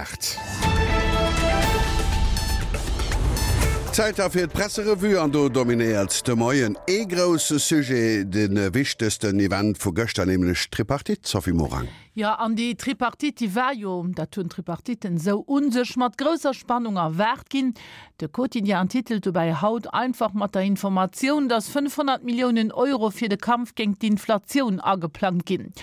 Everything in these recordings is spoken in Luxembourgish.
8. Zäit da fir d'Presserevue an do dominéiert de Moien ee grousse Sujet, de wichtegsten Event vu gëschter, nämlech d'Tripartite. Sophie Morang. Jo, an déi Tripartite, déi war jo, dat hunn d'Tripartitten esou u sech, mat grousser Spannung erwaart ginn. De Quotidien titelt dobäi haut einfach mat der Informatioun, datt 500 Milliounen Euro fir de Kampf géint d'Inflatioun ageplangt ginn.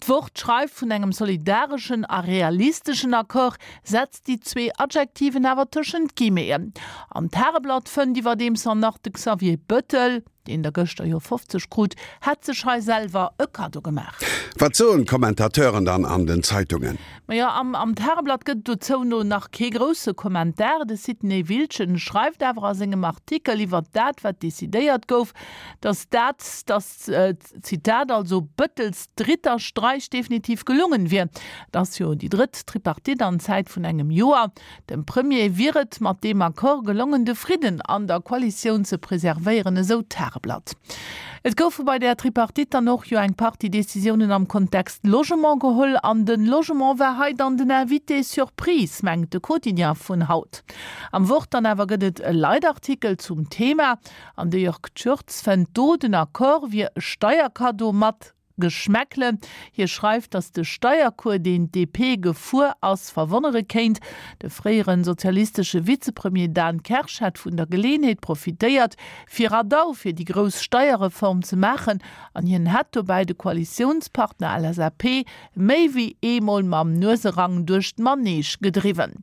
D'Wort schreift vun engem solidareschen a realisteschen Accord, setzt déi zwee Adjektiven awer tëschent d'Guillemeten. An d'Tageblatt fënnt iwwerdeems an nach de Xavier Bettel, deen der gëschter jo 50 krut, hätt sech hei selwer e Kaddo gemaach. Wat soen d'Kommentateuren dann an den Zeitungen? Majo, am am Tageblatt gëtt et dozou no nach kee grousse Kommentar. De Sidney Wiltgen schreift awer a sengem Artikel iwwert dat, wat decidéiert gouf, datt dat, datt, Zitat, also Bëttels dritter Streich definitiv gelungen wier. Et ass jo déi drëtt Tripartite an Zäit vun engem Joer. Dem Premier wier et mat deem Accord gelongen, de Fridden an der Koalitioun ze preservéieren, esou d'Tageblatt. Et goufe bei där Tripartite dann och jo eng Partie Decisiounen am Kontext Logement geholl an de Logement war hei dann den Invité surprise, mengt de Quotidien vun haut. Am Wort dann awer gëtt et e Leitartikel zum Thema an de Jörg Tschürtz fënnt do, den Accord wier e Steierkaddo mat Geschmäckle. Hie schreift, datt de Steiercours, deen d'DP gefuer ass, verwonnere kéint. De fréiere sozialistesche Vizepremier Dan Kersch hätt vun der Geleeënheet profitéiert, fir Radau fir déi grouss Steierreform ze maachen an hien hätt dobäi de Koalitiounspartner LSAP méi wéi eemol mam Nueserang duerch d'Manege gedriwwen.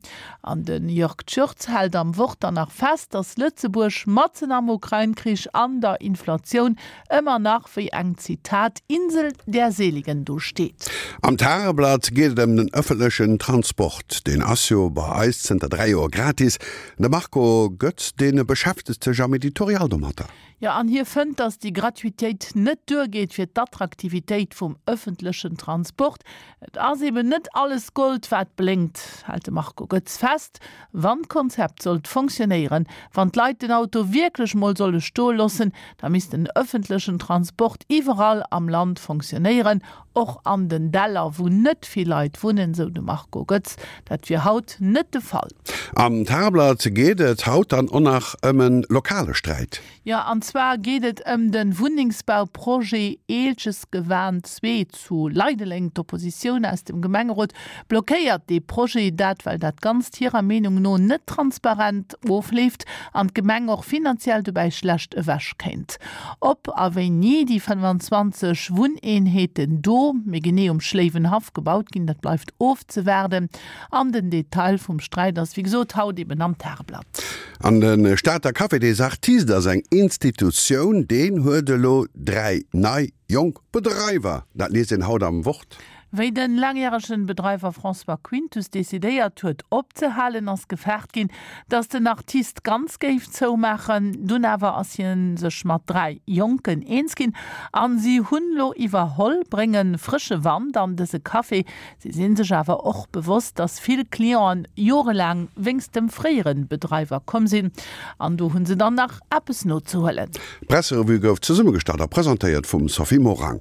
An de Jörg Tschürtz hält am Wort dann nach fest, datt Lëtzebuerg matzen am Ukrain-Krich an der Inflatioun ëmmer nach wéi eng, Zitat, Insel der Seligen do steet. Am Tageblatt geet et ëm den ëffentlechen Transport. Deen ass jo bei eis zënter 3 Joer gratis. De Marco Goetz, dee beschäftegt sech am Editorial domatter. Jo, an hie fënnt, datt déi Gratuitéit net duergeet fir d'Attraktivitéit vum ëffentlechen Transport. Et ass eben net alles Gold, wat blénkt, hält de Marco Goetz fest. Wann d'Konzept sollt fonctionnéieren, wann d'Leit den Auto wierklech mol solle stoe loossen, da misst den ëffentlechen Transport iwwerall am Land fonctionnéieren, och an den Däller, wou net vill Leit wunnen, sou de Marco Goetz. Dat wier haut net de Fall. Am Tageblatt geet et haut dann och nach ëm e lokale Sträit. Jo, an zwar geet et ëm de Wunnengsbauprojet Eelchesgewan 2 zu Leideleng. D'Oppositioun aus dem Gemengerot blockéiert dee Projet, dat well dat Ganzt hirer Meenung no net transparent ofleeft an d'Gemeng och finanziell dobäi schlecht ewech kéint. Ob a wéini déi 25 Wunneenheeten do, méi genee um Schléiwenhaff, gebaut ginn, dat bleift ofzewaarden. An den Detail vum Sträit ass wéi gesot haut eben am Tageblatt. An de Stater Café des Artistes ass eng Institutioun, deen huet elo 3 nei jonk Bedreiwer. Dat liest een haut am Wort. Wéi den laangjäregen Bedreiwer François Quintus decidéiert huet opzehalen, ass gefaart ginn, datt den Artiste ganz géif zoumaachen. Dunn awer ass hien sech mat 3 Jonken eens ginn an si hunn lo iwwerholl, brénge frësche Wand an dëse Café. Si sinn sech awer och bewosst, dass vill Clienten jorelaang wéngst dem fréieren Bedreiwer komm sinn an do hunn se dann nach eppes nozehuelen. D'Presserevue gouf zesummegestallt a presentéiert vum Sophie Morang.